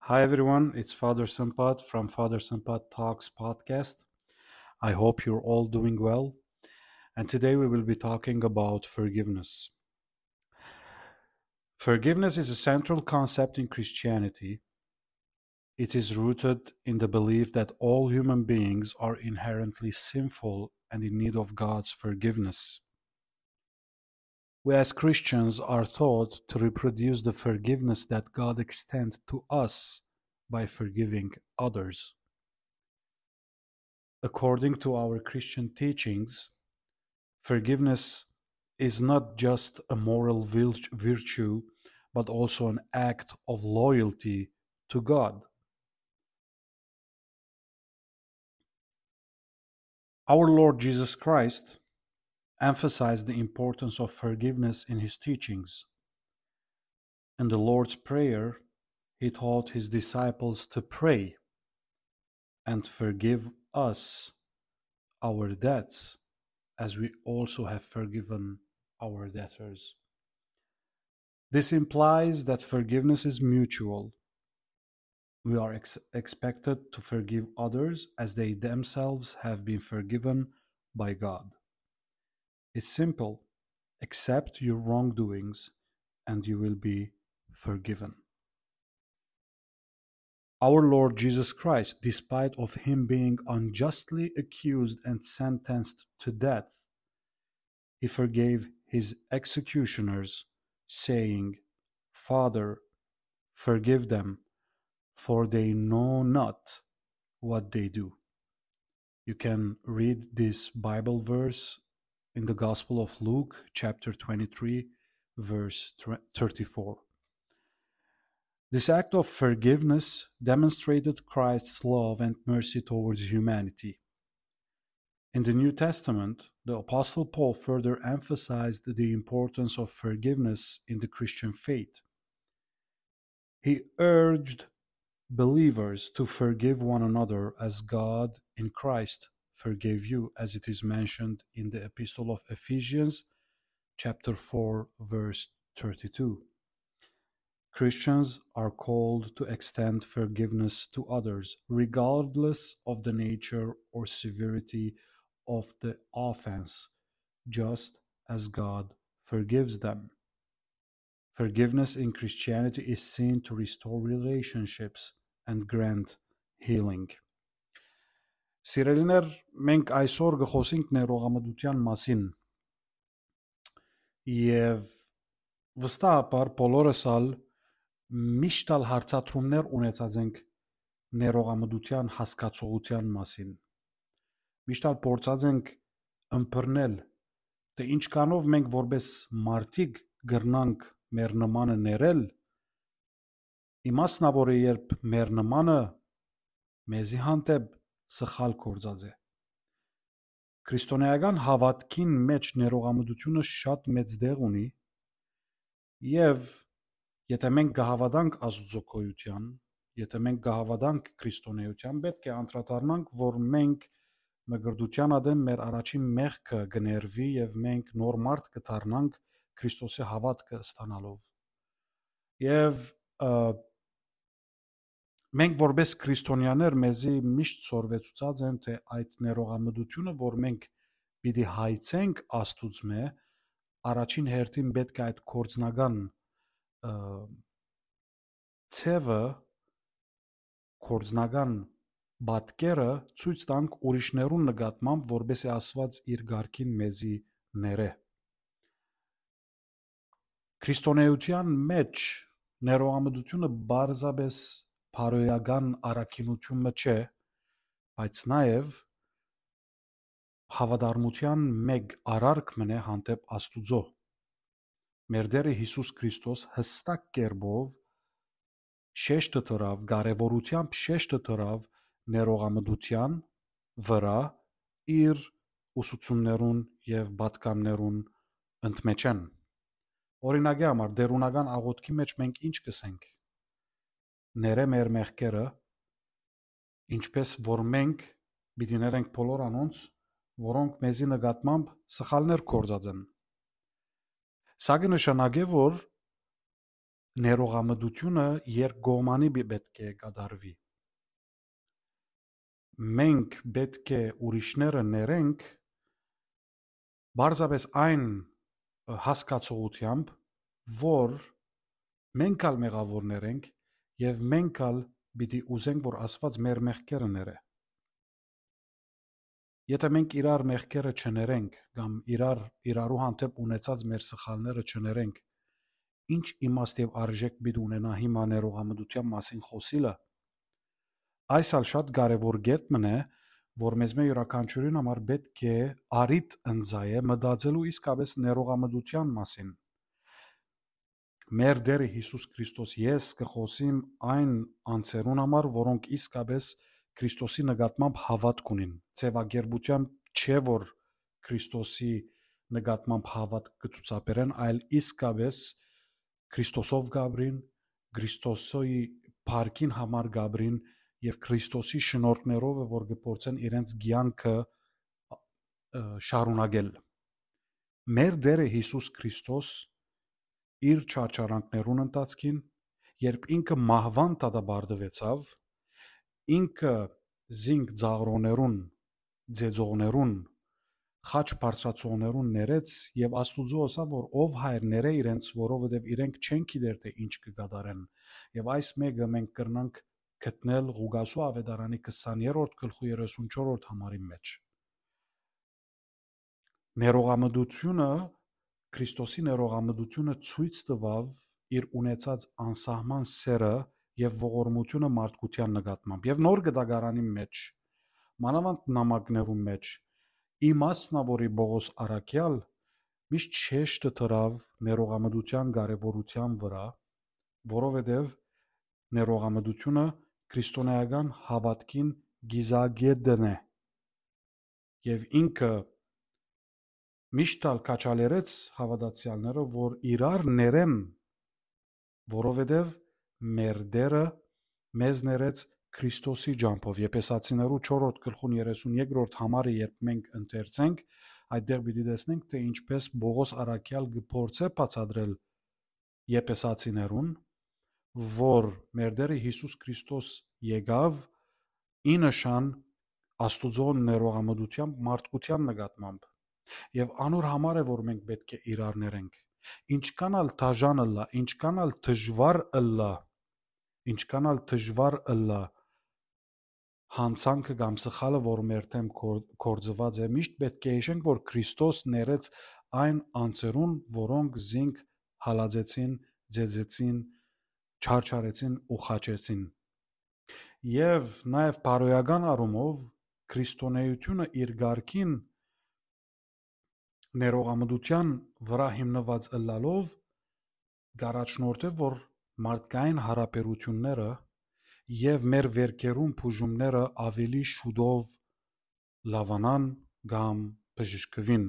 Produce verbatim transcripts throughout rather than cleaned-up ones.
Hi everyone, it's Father Sampat from Father Sampat Talks podcast. I hope you're all doing well. And today we will be talking about forgiveness. Forgiveness is a central concept in Christianity. It is rooted in the belief that all human beings are inherently sinful and in need of God's forgiveness. We as Christians are taught to reproduce the forgiveness that God extends to us by forgiving others. According to our Christian teachings, forgiveness is not just a moral vil-, virtue, but also an act of loyalty to God. Our Lord Jesus Christ emphasized the importance of forgiveness in his teachings. In the Lord's Prayer, he taught his disciples to pray, "And forgive us our debts, as we also have forgiven our debtors." This implies that forgiveness is mutual. We are ex-, expected to forgive others as they themselves have been forgiven by God. It's simple. Accept your wrongdoings and you will be forgiven. Our Lord Jesus Christ, despite of him being unjustly accused and sentenced to death, he forgave his executioners, saying, "Father, forgive them, for they know not what they do." You can read this Bible verse in the Gospel of Luke, chapter twenty-three, verse thirty-four. This act of forgiveness demonstrated Christ's love and mercy towards humanity. In the New Testament, the Apostle Paul further emphasized the importance of forgiveness in the Christian faith. He urged believers to forgive one another as God in Christ forgave you, as it is mentioned in the Epistle of Ephesians, chapter four, verse thirty-two. Christians are called to extend forgiveness to others, regardless of the nature or severity of the offense, just as God forgives them. Forgiveness in Christianity is seen to restore relationships and grant healing. Սիրելիներ, մենք այսօր կը խոսենք ներողամտության մասին, եւ վստահաբար բոլորս ալ միշտ ալ հարցատրումներ ունեցած ենք ներողամտության հասկացողության մասին։ Միշտ ալ փորձած ենք ըմբռնել, թէ ինչքանով մենք որպես մարդիկ կրնանք մեր նմանը ներել, իմասնաւորը երբ մեր նմանը մեզի հանդէպ սխալ գործած է։ Քրիստոնեական հաւատքին մէջ ներողամտությունը շատ մեծ տեղ ունի, եւ եթէ մենք կը հաւատանք Աստուծոյ գոյութեան, եթէ մենք կը հաւատանք քրիստոնեութեան, պէտք է անդրադառնանք, որ մենք մկրտութեան ատեն մեր առաջին մեղքը կը ներուի եւ մենք նոր մարդ կը դառնանք Քրիստոսի հաւատքը ստանալով։ Եւ, ը, մենք որպես քրիստոնեաներ մեզի միշտ սորվեցուցած են, թէ այդ ներողամտությունը, որ մենք պիտի հայցենք Աստուծմէ, առաջին հերթին պէտք է այդ գործնական, ը, ձևը, գործնական պատկերը ցոյց տանք ուրիշներուն նկատմամբ, որպէս զի Աստուած իր կարգին մեզի ներէ։ Քրիստոնեության մէջ ներողամտությունը պարզապէս բարոյական առաքինութիւն մը չէ, բայց նաեւ հաւատարմութեան մէկ արարք մըն է հանդէպ Աստուծոյ։ Մեր Տէրը Յիսուս Քրիստոս յստակ կերպով շեշտը դրաւ, կարեւորութեամբ շեշտը դրաւ ներողամտության վրայ իր ուսուցումներուն եւ պատգամներուն ընդմէջէն։ Օրինակի համար, տէրունական աղօթքի մէջ մենք ինչ կ'ըսենք։ «Ներէ մեր մեղքերը, ինչպէս որ մենք պիտի ներենք բոլոր անոնց, որոնք մեզի նկատմամբ սխալներ գործած են»։ Սա կը նշանակէ, որ ներողամտությունը երկկողմանի պի- պէտք է կատարուի։ Մենք պէտք է ուրիշները ներենք պարզապէս այն, ը, հասկացողութեամբ, որ մենք ալ մեղաւորներ ենք եւ մենք ալ պիտի ուզենք, որ Աստուած մեր մեղքերը ներէ։ Եթէ մենք իրար մեղքերը չներենք կամ իրար, իրարու հանդէպ ունեցած մեր սխալները չներենք, ի՞նչ իմաստ եւ արժէք պիտի ունենայ հիմա ներողամտութեան մասին խօսիլը։ Այս ալ շատ կարեւոր կետ մըն է, որ մեզմէ իւրաքանչիւրին համար պէտք է առիթ ընծայէ մտածելու իսկապէս ներողամտութեան մասին։ Մեր Տէրը Յիսուս Քրիստոս, ես կը խօսիմ այն անձերուն համար, որոնք իսկապէս Քրիստոսի նկատմամբ հաւատք ունին, ձեւակերպութեամբ չէ, որ Քրիստոսի նկատմամբ հաւատք կը ցուցաբերեն, այլ իսկապէս Քրիստոսով կ'ապրին, Քրիստոսի փառքին համար կ'ապրին եւ Քրիստոսի շնորհքներով է, որ կը փորձեն իրենց կեանքը, ը, շարունակել։ Մեր Տէրը Յիսուս Քրիստոս իր չարչարանքներուն ընթացքին, երբ ինքը մահուան դատապարտուեցաւ, ինքը զինք ծաղրոներուն, ծեծողներուն, խաչ բարձրացողներուն ներեց եւ Աստուծոյ ըսաւ, որ ով Հայր, ներէ իրենց, որովհետեւ իրենք չեն գիտեր, թէ ինչ կը կատարեն։ Եւ այս մէկը մենք կրնանք գտնել Ղուկասու աւետարանի քսաներորդ գլխու երեսունչորդ համարին մէջ։ Ներողամտությունը, Քրիստոսի ներողամտությունը ցոյց տուաւ իր ունեցած անսահման սէրը եւ ողորմութիւնը մարդկութեան նկատմամբ։ Եւ Նոր Կտակարանի մէջ, մանաւանդ նամակներուն մէջ, իմասնաւորի Պողոս առաքեալ միշտ շեշտը դրաւ ներողամտութեան կարեւորութեան վրայ, որովհետեւ ներողամտությունը քրիստոնէական հաւատքին կիզակետն է։ Եւ ինքը միշտ ալ քաջալերեց հաւատացեալները, որ իրար ներեն, որովհետեւ մեր Տէրը մեզ ներեց Քրիստոսի ճամբով։ Եփեսացիներու չորրորդ գլխուն երեսուն երկրորդ համարը երբ մենք ընթերցենք, այդտեղ պիտի տեսնենք, թէ ինչպես Պողոս առաքեալ կը փորձէ բացատրել Եփեսացիներուն, որ մեր Տէրը Յիսուս Քրիստոս եկաւ ի նշան Աստուծոյ ներողամտութեան մարդկութեան նկատմամբ։ Եւ անոր համար է, որ մենք պէտք է իրար ներենք։ Ինչքան ալ դաժան ըլլայ, ինչքան ալ դժուար ըլլայ, ինչքան ալ դժուար ըլլայ, յանցանքը կամ սխալը, որ մեր դէմ կոր-, գործուած է, միշտ պէտք է յիշենք, որ Քրիստոս ներեց այն անձերուն, որոնք զինք հալածեցին, ձեծեցին, չարչարեցին ու խաչեցին։ Եւ նաեւ բարոյական առումով քրիստոնէութիւնը իր կարգին ներողամտության վրայ հիմնուած ըլլալով, կ'առաջնորդէ, որ մարդկային յարաբերութիւնները եւ մեր վէրքերուն բուժումները աւելի շուտով լաւանան կամ բժշկուին։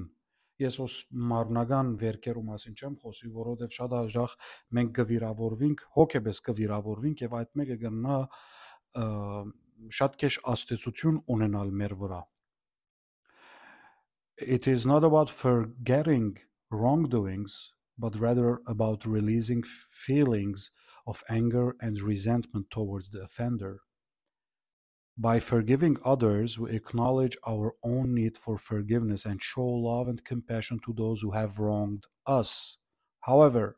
Ես հոս մարմնական վէրքերու մասին չեմ խօսի, որովհետեւ շատ հաճախ մենք կը վիրաւորուինք, հոգեպէս կը վիրաւորուինք եւ այդ մէկը կրնայ, ը, շատ քեշ ազդեցութիւն ունենալ մեր վրայ։ It is not about forgetting wrongdoings, but rather about releasing feelings of anger and resentment towards the offender. By forgiving others, we acknowledge our own need for forgiveness and show love and compassion to those who have wronged us. However,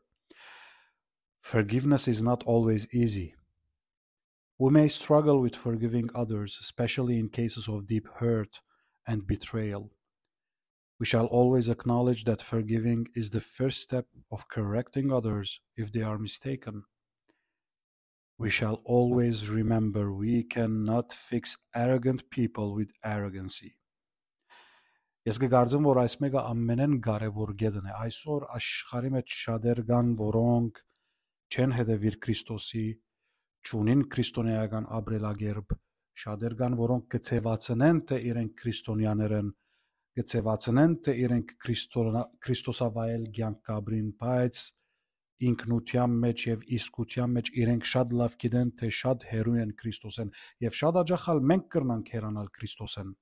forgiveness is not always easy. We may struggle with forgiving others, especially in cases of deep hurt and betrayal. We shall always acknowledge that forgiving is the first step of correcting others if they are mistaken. We shall always remember we cannot fix arrogant people with arrogancy. Ես կը կարծեմ, որ այս մէկը ամենէն կարեւոր կետն է։ Այսօր աշխարհի մեջ շատեր կան, որոնք չեն հետևիր Քրիստոսի, չունին քրիստոնեական ապրելակերպ, շատեր կան, որոնք կը ձևացնեն, թէ իրենք քրիստոնյաներ են, կը ձևացնեն, թէ իրենք քրիստոնա-, քրիստոսավայել կեանք կ'ապրին, բայց ինքնութեան մեջ եւ իսկութեան մեջ իրենք շատ լաւ գիտեն, թէ շատ հեռու են Քրիստոսէն, եւ շատ հաճախ ալ մենք կրնանք հեռանալ Քրիստոսէն։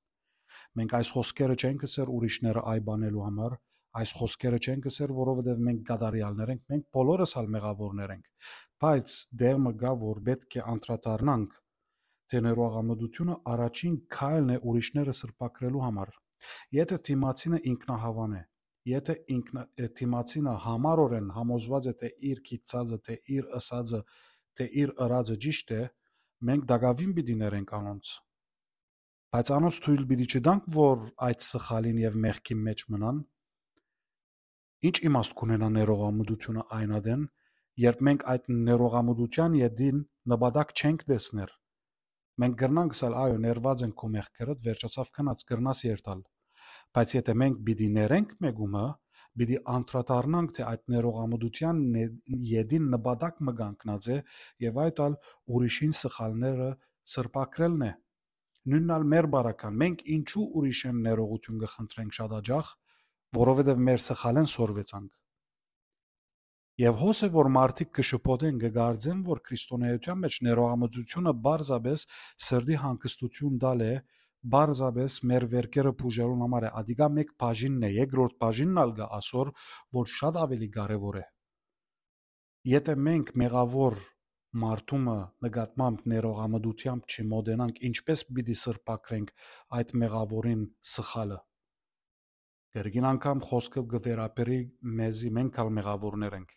Մենք այս խօսքերը չենք ըսեր ուրիշները այ բանելու համար, Այս խօսքերը չենք ըսեր, որովհետեւ մենք կատարեալներ ենք, մենք բոլորս ալ մեղաւորներ ենք։ Բայց դեր մը կայ, որ պէտք է անդրադառնանք, թէ ներողամտությունը առաջին քայլն է ուրիշները սրբագրելու համար։ Եթէ դիմացինը ինքնահաւան է, եթէ ինքնա-, դիմացինը յամառօրէն համոզուած է, թէ իր գիտցածը, թէ իր ըսածը, թէ իր ըրածը ճիշդ է, մենք տակաւին պիտի ներենք անոնց։ Բայց անոնց թոյլ պիտի չտանք, որ այդ սխալին եւ մեղքին մէջ մնան։ Ինչ իմաստ կունենայ ներողամտությունը այն ատեն, երբ մենք այդ ներողամտութեան ետին նպատակ չենք տեսներ։ Մենք կրնանք ըսել, «Այո, ներուած ենք քու մեղքերդ, վերջացաւ, գնաց, կրնաս երթալ»։ Բայց եթէ մենք պիտի ներենք մէկումը, պիտի անդրադառնանք, թէ այդ ներողամտութեան նե-, ետին նպատակ մը կանգնած է, եւ այդ ալ ուրիշին սխալները սրբագրելն է։ Նոյնն ալ մեր բարական, մենք ինչու ուրիշէն ներողութիւն կը խնդրենք շատ աջախ, որովհետեւ մեր սխալէն սորվեցանք։ Եւ հոս է, որ մարդիկ կը շփոթեն, կը կարծեն, որ քրիստոնէության մէջ ներողամտությունը պարզապէս սրտի հանգստութիւն տալ է, պարզապէս մեր վերքերը բուժելուն համար է։ Ադիկա մէկ բաժինն է, երկրորդ բաժինն ալ կայ ասոր, որ շատ աւելի կարեւոր է։ Եթէ մենք մեղաւոր մարդու մը նկատմամբ ներողամտութեամբ չմոտենանք, ինչպէս պիտի սրբագրենք այդ մեղաւորին սխալը։ Կրկին անգամ խօսքը կը վերաբերի մեզի, մենք ալ մեղաւորներ ենք։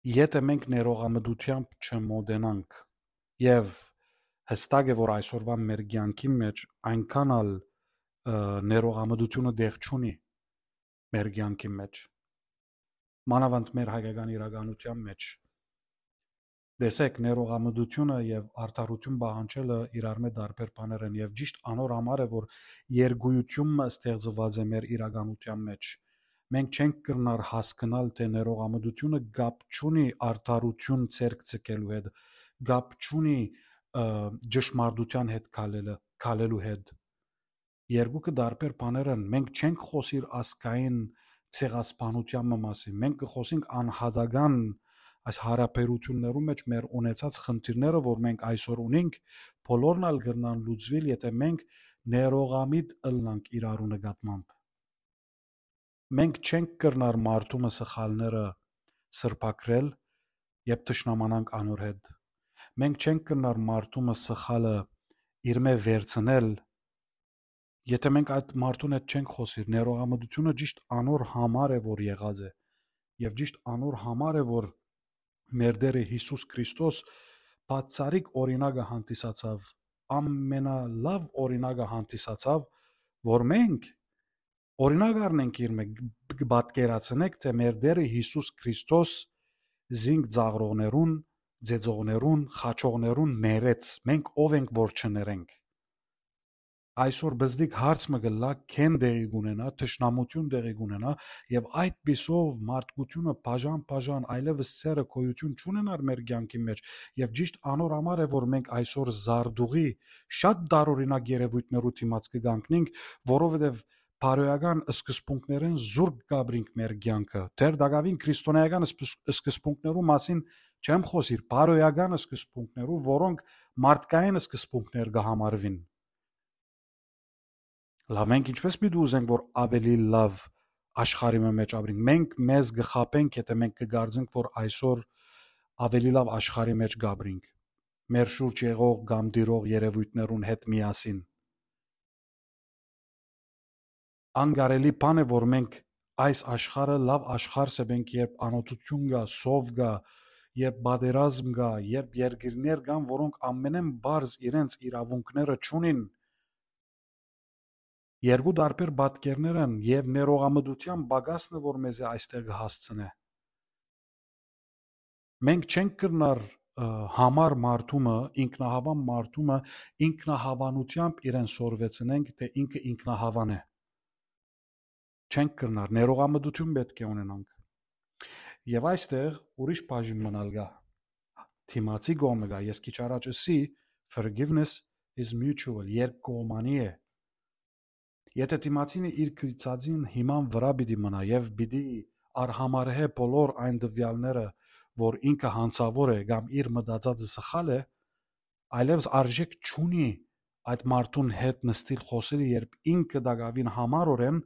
Եթէ մենք ներողամտութեամբ չմոտենանք, եւ հստակ է, որ այսօրուան մեր կեանքին մէջ այնքան ալ, ը, ներողամտությունը տեղ չունի մեր կեանքին մէջ, մանաւանդ մեր հայկական իրականության մէջ։ Տեսեք, ներողամտությունը եւ արդարութիւն պահանջելը իրարմէ տարբեր բաներ են, եւ ճիշդ անոր համար է, որ երկուիութիւն մը ստեղծուած է մեր իրականության մէջ։ Մենք չենք կրնար հասկնալ, թէ ներողամտությունը կապ չունի արդարութիւն ձեռք ձգելու հետ, կապ չունի, ը, ճշմարտության հետ քալելը, քալելու հետ։ Երկուքը տարբեր բաներ են։ Մենք չենք խօսիր ազգային ցեղասպանութեան մը մասին։ Մենք կը խօսենք անհատական այս յարաբերութիւններու մէջ մեր ունեցած խնդիրները, որ մենք այսօր ունենք, բոլորն ալ կրնան լուծուիլ, եթէ մենք ներողամիտ ըլլանք իրարու նկատմամբ։ Մենք չենք կրնար մարդու մը սխալները սրբագրել, երբ թշնամանանք անոր հետ։ Մենք չենք կրնար մարդու մը սխալը իրմէ վերցնել, եթէ մենք այդ մարդուն հետ չենք խօսիր։ Ներողամտությունը ճիշտ անոր համար է, որ եղած է, եւ ճիշտ անոր համար է, որ մեր Տէրը Յիսուս Քրիստոս բացառիկ օրինակը հանդիսացաւ, ամենալաւ օրինակը հանդիսացաւ, որ մենք օրինակ առնենք իրմէ, կը պատկերացնենք, թէ մեր Տէրը Յիսուս Քրիստոս զինք ծաղրողներուն, ծեծողներուն, խաչողներուն ներեց, մենք ով ենք, որ չներենք։ Այսօր բզդիկ հարց մը կ'ըլլայ, քեն տեղի կունենայ, թշնամութիւն տեղի կունենայ, եւ այդ պիսով մարդկությունը բաժան-բաժան այլեւս սերը գոյութիւն չունենար մեր կեանքի մէջ, եւ ճիշտ անոր համար է, որ մենք այսօր զարտուղի շատ տարօրինակ երեւոյթներու դիմաց կը կանգնենք, որովհետեւ բարոյական սկզբունքներէն զուրկ կ'ապրինք մեր կեանքը։ Դեռ տակաւին քրիստոնեական սկզբունքներու մասին չեմ խօսիր, բարոյական սկզբունքներու, որոնք մարդկային սկզբունքներ կը համարուին։ Լավ, մենք ինչպէս պիտի ուզենք, որ աւելի լաւ աշխարհի մը մէջ ապրենք։ Մենք մեզ կը խաբենք, եթէ մենք կը կարծենք, որ այսօր աւելի լաւ աշխարհի մէջ կ'ապրենք, մեր շուրջ եղող կամ տիրող երեւոյթներուն հետ միասին։ Անկարելի բան է, որ մենք այս աշխարհը լաւ աշխարհ սեպենք, երբ անօթութիւն կայ, սով կայ, երբ պատերազմ կայ, երբ երկիրներ կան, որոնք ամենէն պարզ իրենց իրաւունքները չունին։ Երկու տարբեր պատկերներ են, եւ ներողամտութեան պակասն է, որ մեզի այստեղ կը հասցնէ։ Մենք չենք կրնար, ը, համար մարդու մը, ինքնահաւան մարդու մը, ինքնահաւանութեամբ իրեն սորվեցնենք, թէ ինքը ինքնահաւան է։ Չենք կրնար, ներողամտութիւն պէտք է ունենանք։ Եւ այստեղ ուրիշ բաժին մը ալ կայ։ Դիմացի կողմը կայ, ես քիչ առաջ ըսի, forgiveness is mutual, երկկողմանի է։ Եթէ դիմացինը իր գիծածին հիման վրայ պիտի մնայ եւ պիտի արհամարհէ բոլոր այն տվեալները, որ ինքը յանցաւոր է կամ իր մտածածը սխալ է, այլեւս արժէք չունի այդ մարդուն հետ նստիլ, խօսիլ, երբ ինքը տակաւին յամառօրէն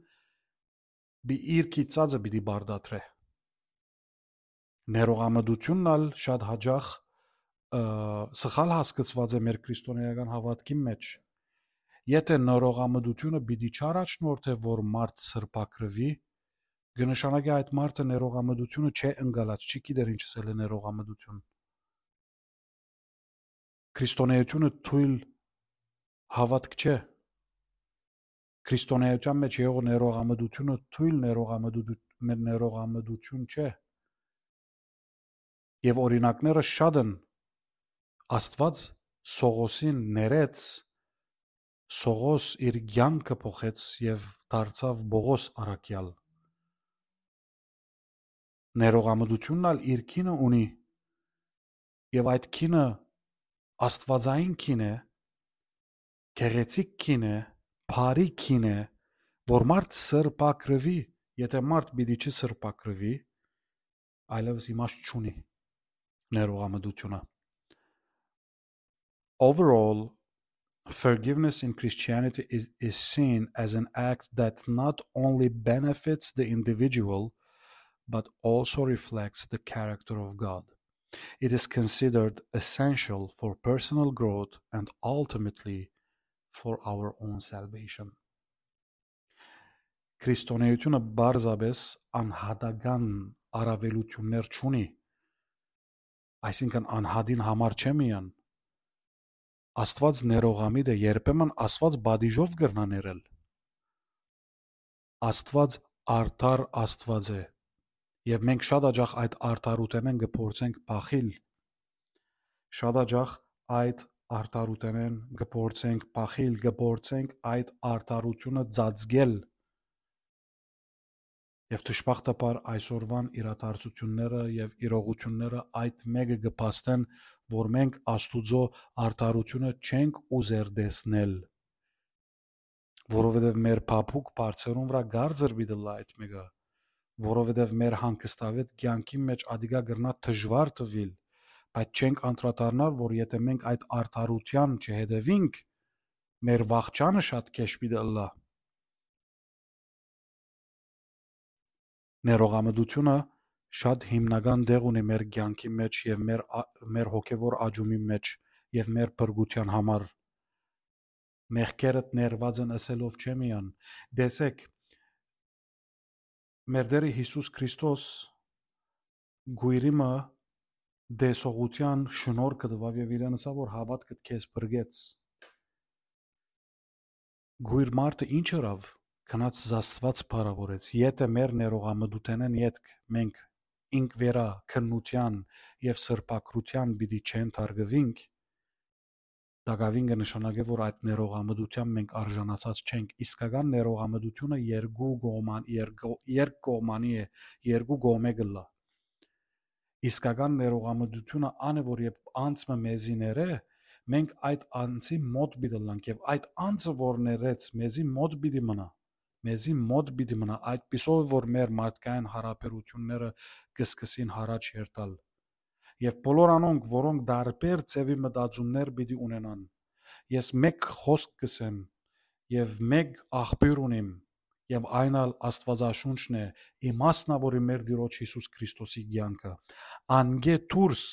իր կիցածը պիտի պարտադրէ։ Ներողամտությունն ալ շատ յաճախ սխալ հասկցուած է մեր քրիստոնէական հաւատքին մէջ։ Եթէ ներողամտությունը պիտի չառաջնորդէ, որ մարդ սրբագրուի, կը նշանակէ այդ մարդը ներողամտությունը չէ ընկալած, չի գիտեր ինչ ըսել է ներողամտություն։ Քրիստոնէությունը թոյլ հաւատք չէ։ Քրիստոնէության մէջ եղող ներողամտությունը թոյլ ներողամտութ-, մե-, ներողամտություն չէ։ Եւ օրինակները շատ են։ Աստուած Սողոսին ներեց, Սողոս իր կեանքը փոխեց եւ դարձաւ Պողոս առաքեալ։ Ներողամտությունն ալ իր գինը ունի, եւ այդ գինը աստուածային գին է, գեղեցիկ գին է, բարի գին է, որ մարդ սրբագրուի, եթէ մարդ պիտի չսրբագրուի, այլեւս իմաստ չունի ներողամտությունը։ Overall, forgiveness in Christianity is, is seen as an act that not only benefits the individual, but also reflects the character of God. It is considered essential for personal growth and ultimately for our own salvation. Քրիստոնէությունը պարզապէս անհատական առաւելութիւններ չունի, այսինքն անհատին համար չէ միայն։ Աստուած ներողամիտ է, երբեմն Աստուած պատիժով կրնայ ներել։ Աստուած արդար Աստուած է, եւ մենք շատ յաճախ այդ արդարութենէն կը փորձենք փախիլ։ Շատ յաճախ այդ արդարութենէն կը փորձենք փախիլ, կը փորձենք այդ արդարութիւնը ծածկել։ Եւ դժբախտաբար այսօրուան իրադարձութիւնները եւ իրողութիւնները այդ մէկը կը փաստեն, որ մենք Աստուծոյ արդարութիւնը չենք ուզեր տեսնել, որովհետեւ մեր փափուկ բարձերուն վրայ կարծր պիտի ըլլայ այդ մէկը, որովհետեւ մեր հանգստավետ կեանքին մէջ ատիկա կրնայ դժուար թուիլ, բայց չենք անդրադառնար, որ եթէ մենք այդ արդարութեան չհետեւինք, մեր վախճանը շատ քեշ պիտի ըլլայ։ Ներողամտությունը շատ հիմնական տեղ ունի մեր կեանքի մէջ եւ մեր ա-, մեր հոգեվոր աճումի մէջ եւ մեր փրկութեան համար։ Մեղքերդ ներուած են ըսելով չէ միայն։ Տեսեք, մեր Տէրը Յիսուս Քրիստոս կոյրի մը տեսողութեան շնորհքը տուաւ եւ իրեն ըսաւ, որ հաւատքդ քեզ փրկեց։ Կոյր մարդը ինչ ըրաւ, գնաց Աստուած փառաւորեց։ Եթէ մեր ներողամտութենէն ետք մենք ինք վերա քննութեան եւ սրբագրութեան պիտի չհանդերձվինք, տակաւին կը նշանակէ, որ այդ ներողամտութեան մենք արժանացած չենք։ Իսկական ներողամտությունը երկու կողման-, երկու, երկկողմանի է, երկու կողմէ կ'ըլլայ։ Իսկական ներողամտությունը ան է, որ երբ անձ մը մեզի ներէ, մենք այդ անձի մոտ պիտի ըլլանք եւ այդ անձը, որ ներեց, մեզի մոտ պիտի մնայ, մեզի մոտ պիտի մնայ, այդպիսով որ մեր մարդկային յարաբերութիւնները կը սկսին յառաջ երթալ։ Եւ բոլոր անոնք, որոնք տարբեր ձեւի մտածումներ պիտի ունենան, ես մէկ խօսք կ'ըսեմ եւ մէկ աղբիւր ունիմ, եւ այն ալ Աստուածաշունչն է, իմաստն ա, որ մեր Տիրոջ Յիսուս Քրիստոսի կեանքը։ Անկէ դուրս,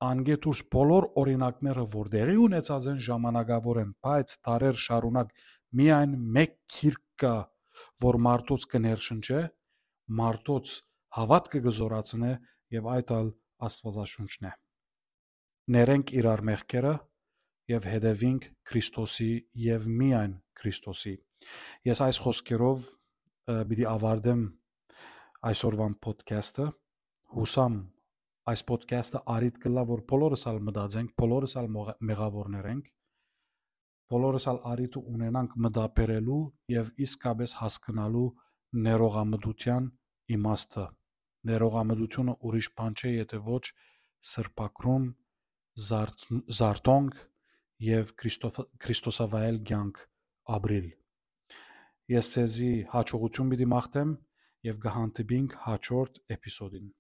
անկէ դուրս բոլոր օրինակները, որ տեղի ունեցած են ժամանակաւորեն, բայց դարեր շարունակ միայն մէկ գիրք կայ, որ մարդոց կը ներշնչէ, մարդոց հաւատքը կը զօրացնէ, եւ այդ ալ Աստուածաշունչն է։ Ներենք իրար մեղքերը եւ հետեւինք Քրիստոսի եւ միայն Քրիստոսի։ Ես այս խօսքերով, ը, պիտի ավարտեմ այսօրվան podcast-ը։ Յուսամ այս podcast-ը առիթ կ'ըլլայ, որ բոլորս ալ մտածենք, բոլորս ալ մողա-, մեղաւորներ ենք, բոլորս ալ առիթը ունենանք մտաբերելու եւ իսկապես հասկնալու ներողամտութեան իմաստը։ Ներողամտությունը ուրիշ բան չէ, եթէ ոչ սրբագրում, զարթ-, զարթոնք եւ Քրիստոֆ-, քրիստոսավայել կեանք ապրիլ։ Ես ձեզի հաջողություն պիտի մաղթեմ եւ կը հանդիպինք հաջորդ էպիզոդին։